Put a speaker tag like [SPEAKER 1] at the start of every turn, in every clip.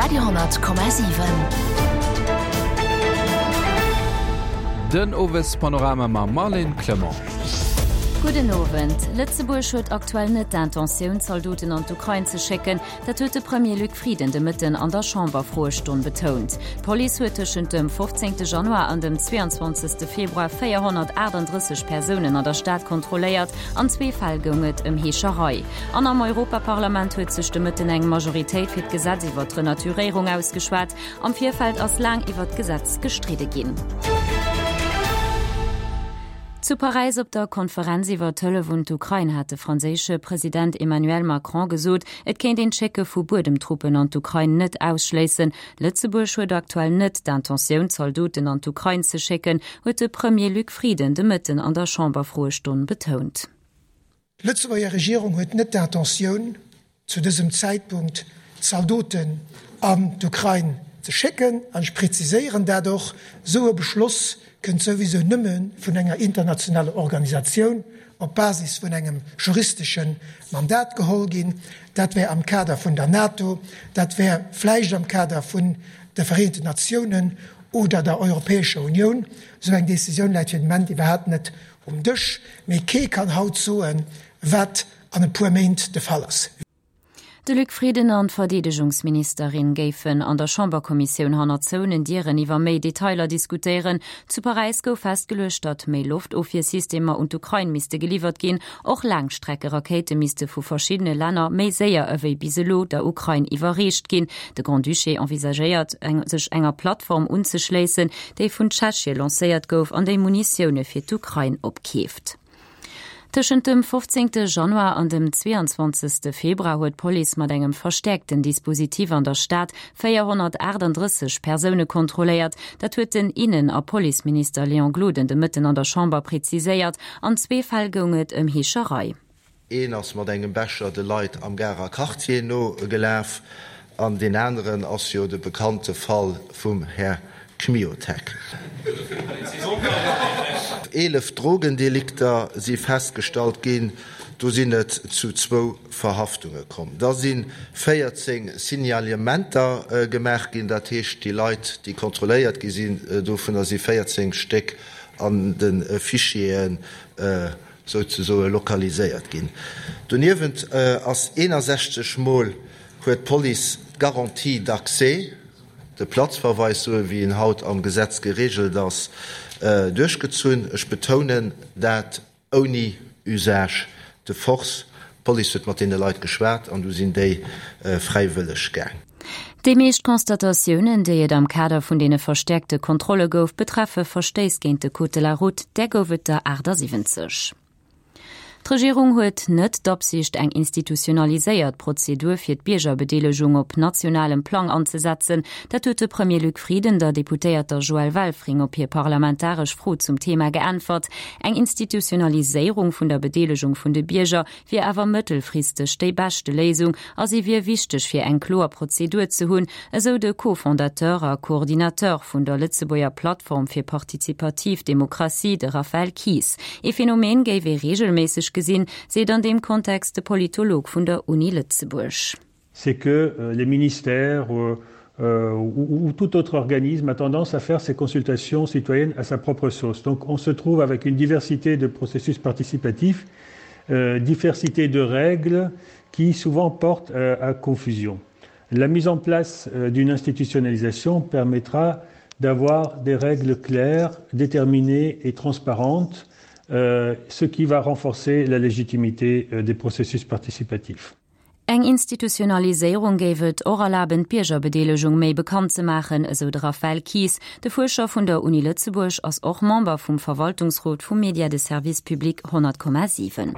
[SPEAKER 1] Radio,7.
[SPEAKER 2] Den Owespanorama mam Marlène Clement.
[SPEAKER 3] Gudden Owend. Lëtzebuerg huet aktuell net d'Intentioun, Zaldoten an d'Ukrain ze schécken. Dat huet de Premier Luc Frieden de Mëtten an der Chamberfroestonn betount. D'Police huet tëschent dem 15 Januar an dem 22 Februar 438 Persounen an der Stad kontrolléiert. An zwee Fäll goung et ëm Heescherei. An am Europaparlament huet sech de Mëtten eng Majoritéit fir d'Gesetz iwwer d'Renaturéierung ausgeschwat. Am Virfeld ass laang iwwer d'Gesetz gestridde ginn. Zu Paräis op der Konferenz iwwer d'Hëllef un d'Ukrain hat de franséische President Emmanuel Macron gesot, et kéint een d'Schécke vu Buedemtruppen an d'Ukrain net ausschléissen. Lëtzebuerg huet aktuell net d'Intentioun, Zaldoten an d'Ukrain ze schécken, huet de Premier Luc Frieden de Mëtten an der Chamberfroestonn betount.
[SPEAKER 4] D'Lëtzebuerger Regierung huet net d'Intentioun, zu dësem Zäitpunkt Zaldoten an d'Ukrain ze schécken. An ech preziséieren dat och, Esou e Beschloss kënnt souwisou nëmme vun enger internationaler Organisatioun op Basis vun engem juristesche Mandat geholl ginn. Dat wär am Kader vun der NATO, dat wär vläicht am Kader vun de Vereenten Natiounen oder der Europäescher Unioun. Esou eng Décisioun läit fir den Moment iwwerhaapt net Um Dësch, mee kee kann haut soen, wat an e puer Méint de Fall ass.
[SPEAKER 3] De Luc Frieden an d'Verdeedegungsministerin géifen an der Chamberkommissioun hannert zouenen Dieren iwwer méi Detailer diskutéieren. Zu Paräis gouf festgeluecht, datt méi Loftofwiersystemer un d'Ukrain misste geliwwert ginn. Och Laangstreckerakéite misste vu verschiddene Länner méi séier ewéi bis elo der Ukrain iwwerreecht ginn. De Grand-Duché envisagéiert, sech enger Plattform unzeschléissen, déi vun Tschechie lancéiert gouf an déi Munitioune fir d'Ukrain opkeeft. Tëschent dem 15 Januar an dem 22 Februar huet d'Police mat engem verstäerkten Dispositif an der Stad 438 Persoune kontrolléiert. Dat huet den Innen a Policeminister Léon Gloden de Mëtten an der Chamber preziséiert. An zwee Fäll goung et ëm Heescherei.
[SPEAKER 5] Een ass mat engem Becher de Leit am Garer Quartier no gelaf an deen aneren ass jo de bekannte Fall vum Här Kmiotek. 11 Drogendelikter si festgestallt ginn, do sinn et zu zwou Verhaftunge komm. Da si 14 Signalementer gemaach ginn, dat heescht déi Leit, déi kontrolléiert gi sinn, dovunner si 14 Stéck an de Fichieren souzesoe lokaliséiert ginn. Doniewent ass 61 Mol huet d'Police d'Garantie d'accès, de Platzverweis, sou wéi en haut am Gesetz geregelt ass, duerchgezunn. Ech betounen dat ouni Usage de force. D'Police huet mat deene Leit geschwat an du sinn déi fräiwëlleg gaang.
[SPEAKER 3] Déi meescht Constatatiounen, déi et am Kader vun deene verstäerkte Kontrolle gouf, betreffe Verstéiss géint de Code de la route, där gouf et der 78. D'Regierung huet net d'Absicht, eng institutionaliséiert Prozedur fir d'Biergerbedeelegung op nationalem Plang anzesetzen. Dat huet de Premier Luc Frieden der Deputéierter Joëlle Welfring op hir parlamentaresch Fro zum Thema geäntwert. Eng Institutionaliséierung vun der Bedeelegung vun de Bierger wier awer mëttelfristeg déi beschte Léisung a si wier wichteg fir eng kloer Prozedur ze hunn, esou de Co-Fondateur a Coordinateur vun der Lëtzebuerger Plattform fir partizipativ Demokratie, de Raphaël Kies. Ee Phänomen géif ee reegelméisseg gesinn, seet an deem Kontext de Politolog vun der Uni Lëtzebuerg.
[SPEAKER 6] C'est que les ministères ou, ou tout autre organisme a tendance à faire ses consultations citoyennes à sa propre sauce. Donc on se trouve avec une diversité de processus participatifs, euh, diversité de règles qui souvent portent euh, à confusion. La mise en place euh, d'une institutionnalisation permettra d'avoir des règles claires, déterminées et transparentes, euh, ce qui va renforcer la légitimité euh, des processus participatifs.
[SPEAKER 3] Eng Institutionaliséierung géif et och erlaben, d'Biergerbedeelegung méi bekannt ze maachen, esou de Raphaël Kies. De Fuerscher vun der Uni Lëtzebuerg ass och Member vum Verwaltungsrot vum Média de service public 100,7.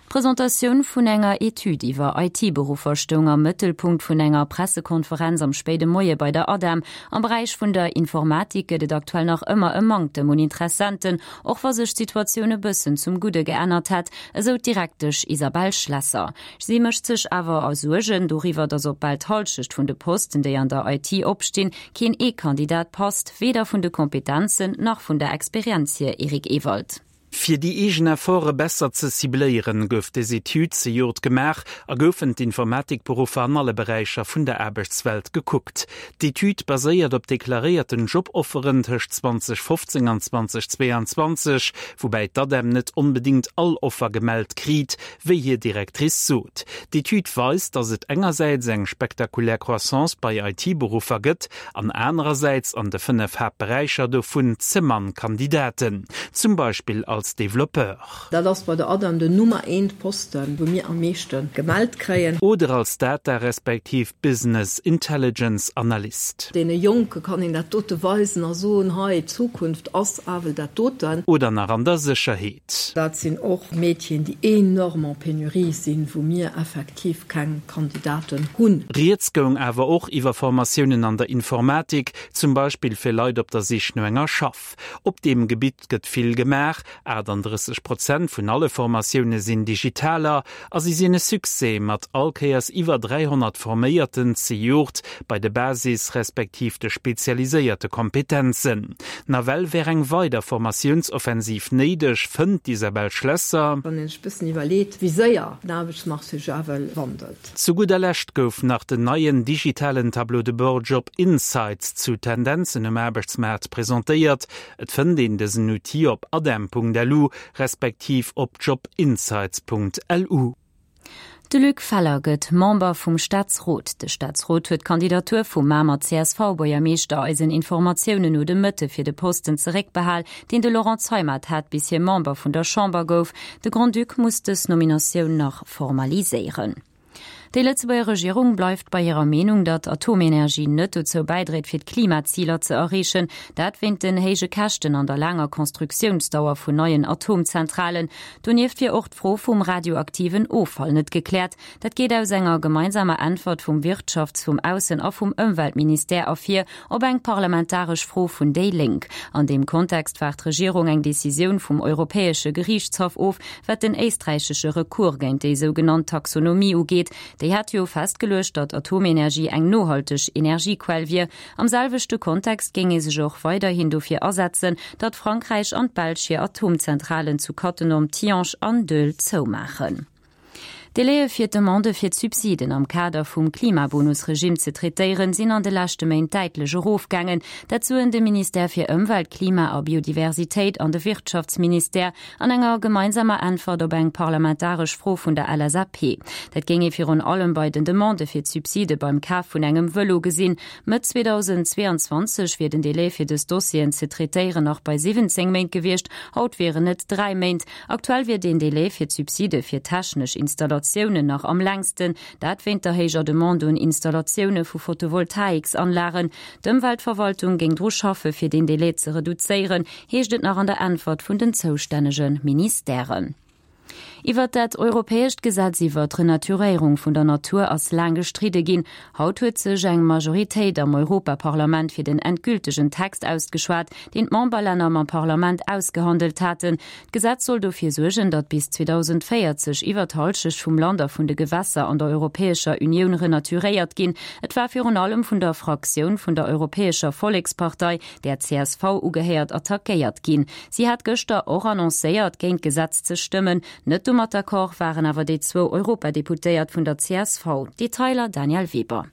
[SPEAKER 3] D'Presentatioun vun enger Etüd iwwer IT-Beruffer stoung am Mëttelpunkt vun enger Pressekonferenz am spéide Moie bei der ADEM. Am Beräich vun der Informatik gëtt et aktuell nach ëmmer e Manktem un Interessenten, och wa sech d'Situatioun e bëssen zum Gudde geännert hätt, esou d'Direktesch Isabelle Schlesser. Si mécht sech awer Suergen doriwwer, datt op bal d'Hallschecht vun de Posten, déi an der IT opstinn, keen ee Kandidat passt, weder vun de Kompetenzen nach vun der Experienz hier. Eric Ewald.
[SPEAKER 1] Fir déi eegen Efforte besser ze cibléieren, gouf des Etüd zejoert gemaach a goufen d'Informatikberuffer an alle Beräicher vun der Aarbechtswelt gekuckt. D'Etüd baséiert op deklaréierten Jobofferen tëscht 2015 an 2022, woubäi d'ADEM net onbedéngt all Offer gemellt kriit, wéi hir Directrice sot. D'Etüd weist, datt et engersäits eng spektakulär Croissance bei IT-Beruffer gëtt an anerersäits an de 5 Haaptberäicher dovun ze mann Kandidaten, zum Beispill als Developpeur.
[SPEAKER 7] Dat ass bei der ADEM den Nummer eent Posten, wou mir am meeschte gemellt kréien.
[SPEAKER 1] Oder als Data respektiv Business Intelligence Analyst.
[SPEAKER 7] Deene Jonke kann een dat dote weisen a soen, hei, d'Zukunft ass awel dat doten.
[SPEAKER 1] Oder nach an der Sécherheet.
[SPEAKER 7] Dat sinn och Métieren, déi enorm en Pénurie sinn, wou mir effektiv keng Kandidaten hunn.
[SPEAKER 1] Rieds goung awer och iwwer Formatiounen an der Informatik, zum Beispill fir Leit op der Sich no enger Schaff. Op deem Gebitt gëtt vill gemaach, 38 Prozent vun alle Formatioune sinn digitaler a si sinn e Succès, mat all Kéiers iwwer 300 Forméierten zejoert bei de Basis respektiv de spezialiséierte Kompetenzen. Nawell wär eng weider Formatiounsoffensiv néideg, fënnt d'Isabelle Schlesser.
[SPEAKER 7] Wann een sech bëssen iwwerleet, wéi séier den Aarbechtsmarché sech ewell wandelt.
[SPEAKER 1] Zu gudder Lescht gouf nach den neien digitalen Tableau de bord Job Insights zu Tendenzen um Aarbechtsmaart presentéiert. Et fënnt een dësen Outil op adem.lu respektiv op jobinsights.lu.
[SPEAKER 3] De Luc Feller gëtt Member vum Staatsrot. De Staatsrot huet d'Kandidatur vum Mamer CSV-Buergermeeschter eisen Informatiounen no de Mëtte fir de Posten zeréckbehal, deen de Laurent Zeimet hat, bis hie Member vun der Chamber gouf. De Grand-Duc muss dës Nominatioun nach formaliséieren. Déi Lëtzebuerger Regierung bleift bei hirer Meenung, datt Atomenergie net dozou bäidréit fir d'Klimaziler ze erreechen. Dat wéint den héije Käschten an der laanger Constructiounsdauer vun neien Atomzentralen. Donieft wier och d'Fro vum radioaktiven Offall net gekläert. Dat geet aus enger gemeinsamer Äntwert vum Wirtschafts-, vum Aussen a vum Ëmweltministère ervir op eng parlamentaresch Fro vun déi Lénk. An deem Kontext waart d'Regierung eng Decisioun vum Europäesche Geriichtshaff of, wat den éisträichesche Recours géint déi sougenannt Taxonomie ugeet. Déi hat jo festgeluecht, datt Atomenergie eng nohalteg Energiequell wier. Am selwechte Kontext géing ee sech och weiderhin dofir asetzen, datt Frankräich an d'Belsch hir Atomzentralen zu Cattenom, Tihange an Doel zoumaachen. D'Délaië fir d'Demandë fir d'Subsiden am Kader vum Klimabonus-Regimm ze traitéieren, sinn an de leschte Méint däitlech erofgaangen. Dat soen de Ministère fir Ëmwelt, Klima a Biodiversitéit an de Wirtschaftsministère an enger gemeinsamer Äntwert op eng parlamentaresch Fro vun der LSAP. Dat géing ee virun allem bei den Demandë fir d'Subside beim Kaf vun engem Vëlo gesinn. Mëtt 2022 wier den Delai fir dës Dossieren ze traitéieren nach bei 17 Méint gewiescht, haut wieren et 3 Méint. Aktuell wier deen Delai fir d'Subside fir technesch Installatiounen nach am längsten, dat wéint der héijer Demande un Installatioune vu Photovoltaiksanlagen. D'Ëmweltverwaltung géing dru schaffe fir deen Delai ze reduzéieren, heescht et nach an der Äntwert vun den zoustännege Ministèren. Iwwert dat europäescht Gesetz iwwer d'Renaturéierung vun der Natur ass laang gestridde ginn. Haut huet sech eng Majoritéit am Europaparlament fir den endgültegen Text ausgeschwat, deen d'Memberlänner mam Parlament ausgehandelt haten. D'Gesetz soll dofir suergen, datt bis 2040 iwwer d'Hallschecht vum Land a vun de Gewässer an der Europäescher Unioun renaturéiert ginn. Et war virun allem vun der Fraktioun vun der Europäescher Vollekspartei, där csv ugehéiert, attackéiert ginn. Si hat gëschter och annoncéiert, géint d'Gesetz ze stëmmen. Net domat d'accord waren awer déi zwou Europadeputéiert vun der csv. Detailer Danièle Weber.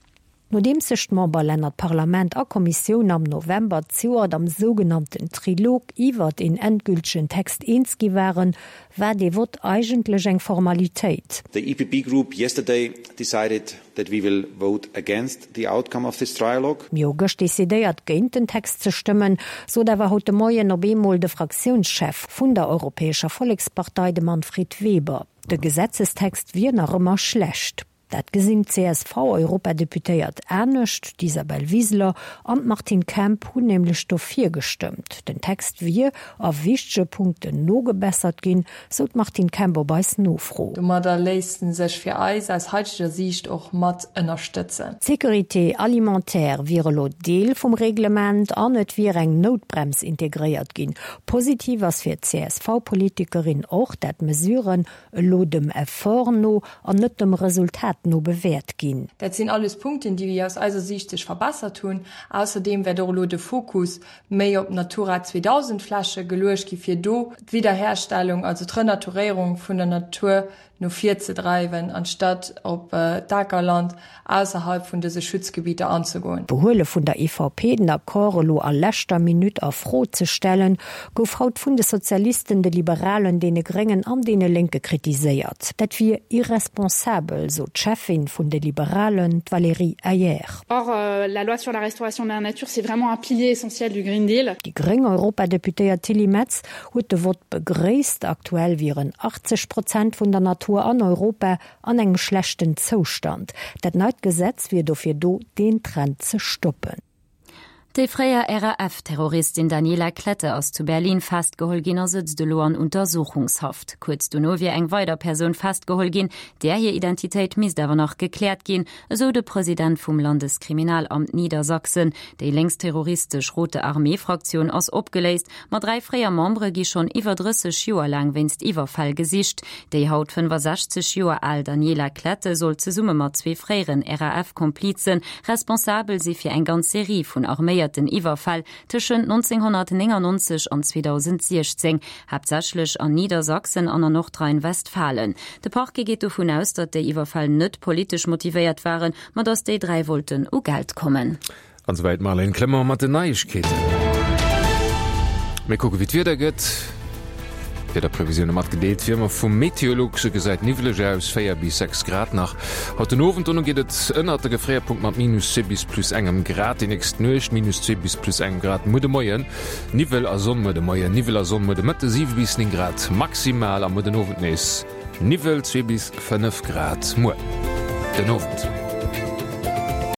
[SPEAKER 8] Nodeems sech d'Memberlänner, d'Parlament a Kommissioun am November zejoert am sougenannten Trilog iwwert een endgültegen Text eens gi waren, war dee Vott eigentlech eng Formalitéit.
[SPEAKER 9] The EPP Group yesterday decided that we will vote against the outcome of this trialogue.
[SPEAKER 8] Mir hu gëscht decidéiert, géint den Text ze stëmmen, sot awer haut de Moien op eemol de Fraktiounschef vun der Europäescher Vollekspartei, de Manfred Weber. De Gesetzestext wier nach ëmmer schlecht. Dat gesinn d'CSV-Europadeputéiert anescht. D'Isabel Wiseler an d'Martine Kemp hunn nämlech dofir gestëmmt. Den Text wier a wichtege Punkten nogebessert ginn, sou d'Martine Kemp op eis Nofro.
[SPEAKER 10] Domadder léisst en sech fir eis aus haiteger Siicht och mat ënnerstëtzen.
[SPEAKER 8] D'Sécurité alimentaire wier elo Deel vum Reglement an et wier eng Noutbrems integréiert ginn. Positiv ass fir d'CSV-Politikerin och, dat d'Mesuren elo dem Effort no an net dem Resultat. wäert no bewäert ginn.
[SPEAKER 10] Dat sinn alles Punkten, déi aus eiser Siicht sech verbessert hunn. Ausserdeem wäert och elo de Fokus méi op Natura 2000 Fläche geluecht gi fir do d'Wiederherstellung, also d'Renaturéierung vun der Natur no vir ze dreiwen, anstatt op d'Akerland ausserhalb vun dëse Schutzgebieter anzegoen.
[SPEAKER 8] D'Behuele vun der EVP, den Accord elo a leschter Minutt a Fro ze stellen, gouf haut vun de Sozialisten, de Liberalen, deene Gréngen an deene Lénke kritiséiert. Dat wier irresponsabel, sot d'Cheffin vun de Liberalen, d'Valérie Hayer.
[SPEAKER 11] Or, la loi sur la restauration de la nature, c'est vraiment un pilier essentiel du Green Deal.
[SPEAKER 8] Déi gréng Europadeputéiert Tilly Metz huet de Vott begréisst. Aktuell wieren 80 Prozent vun der Natur an Europa an engem schlechten Zoustand. Dat neit Gesetz wier dofir do, deen Trend ze stoppen.
[SPEAKER 3] Déi fréier RAF-Terroristin Daniela Klette ass zu Berlin festgeholl ginn a sëtzt elo an Untersuchungshaft. Kuerz dono wier eng weider Persoun festgeholl ginn, där hir Identitéit misst awer nach gekläert ginn, esou de President vum Landeskriminalamt Niedersachsen. Déi lénksterroristesch Rote Armee-Fraktioun ass opgeléist, ma 3 fréier Membere gi schonn iwwer 30 Joer laang wéinst Iwwerfäll gesicht. Déi haut 65 Joer al Daniela Klette soll zesumme mat zwee fréieren RAF-Komplize responsabel si fir eng ganz Serie vun arméierten Iwwerfäll tëschent 1999 an 2016, haaptsächlech an Niedersachsen an a Nordrhein-Westfalen. De Parquet geet dovun aus, datt déi Iwwerfäll net politesch motivéiert waren, ma datt déi 3 wollten u Geld kommen.
[SPEAKER 2] An souwäit d'Marlène Clement mat den Neiegkeeten. Mir kucke wéi d'Wieder gëtt. D'Wiederprevisioune matgedeelt wéi ëmmer vum Meteolux. Et gesäit niwweleg aus, 4 bis 6 Grad nach haut den Owend. Dono geet et ënnert de Gefréierpunkt mat minus 2 bis plus engem Grad. Déi nächst Nuecht minus 2 bis plus engem Grad. Muer de Moien Niwwel a Sonn, muer de Moien Niwwel a Sonn, muer de Mëtte 7 bis 9 Grad maximal a muer den Owend nees Niwwel, 2 bis 5 Grad muer den Owend.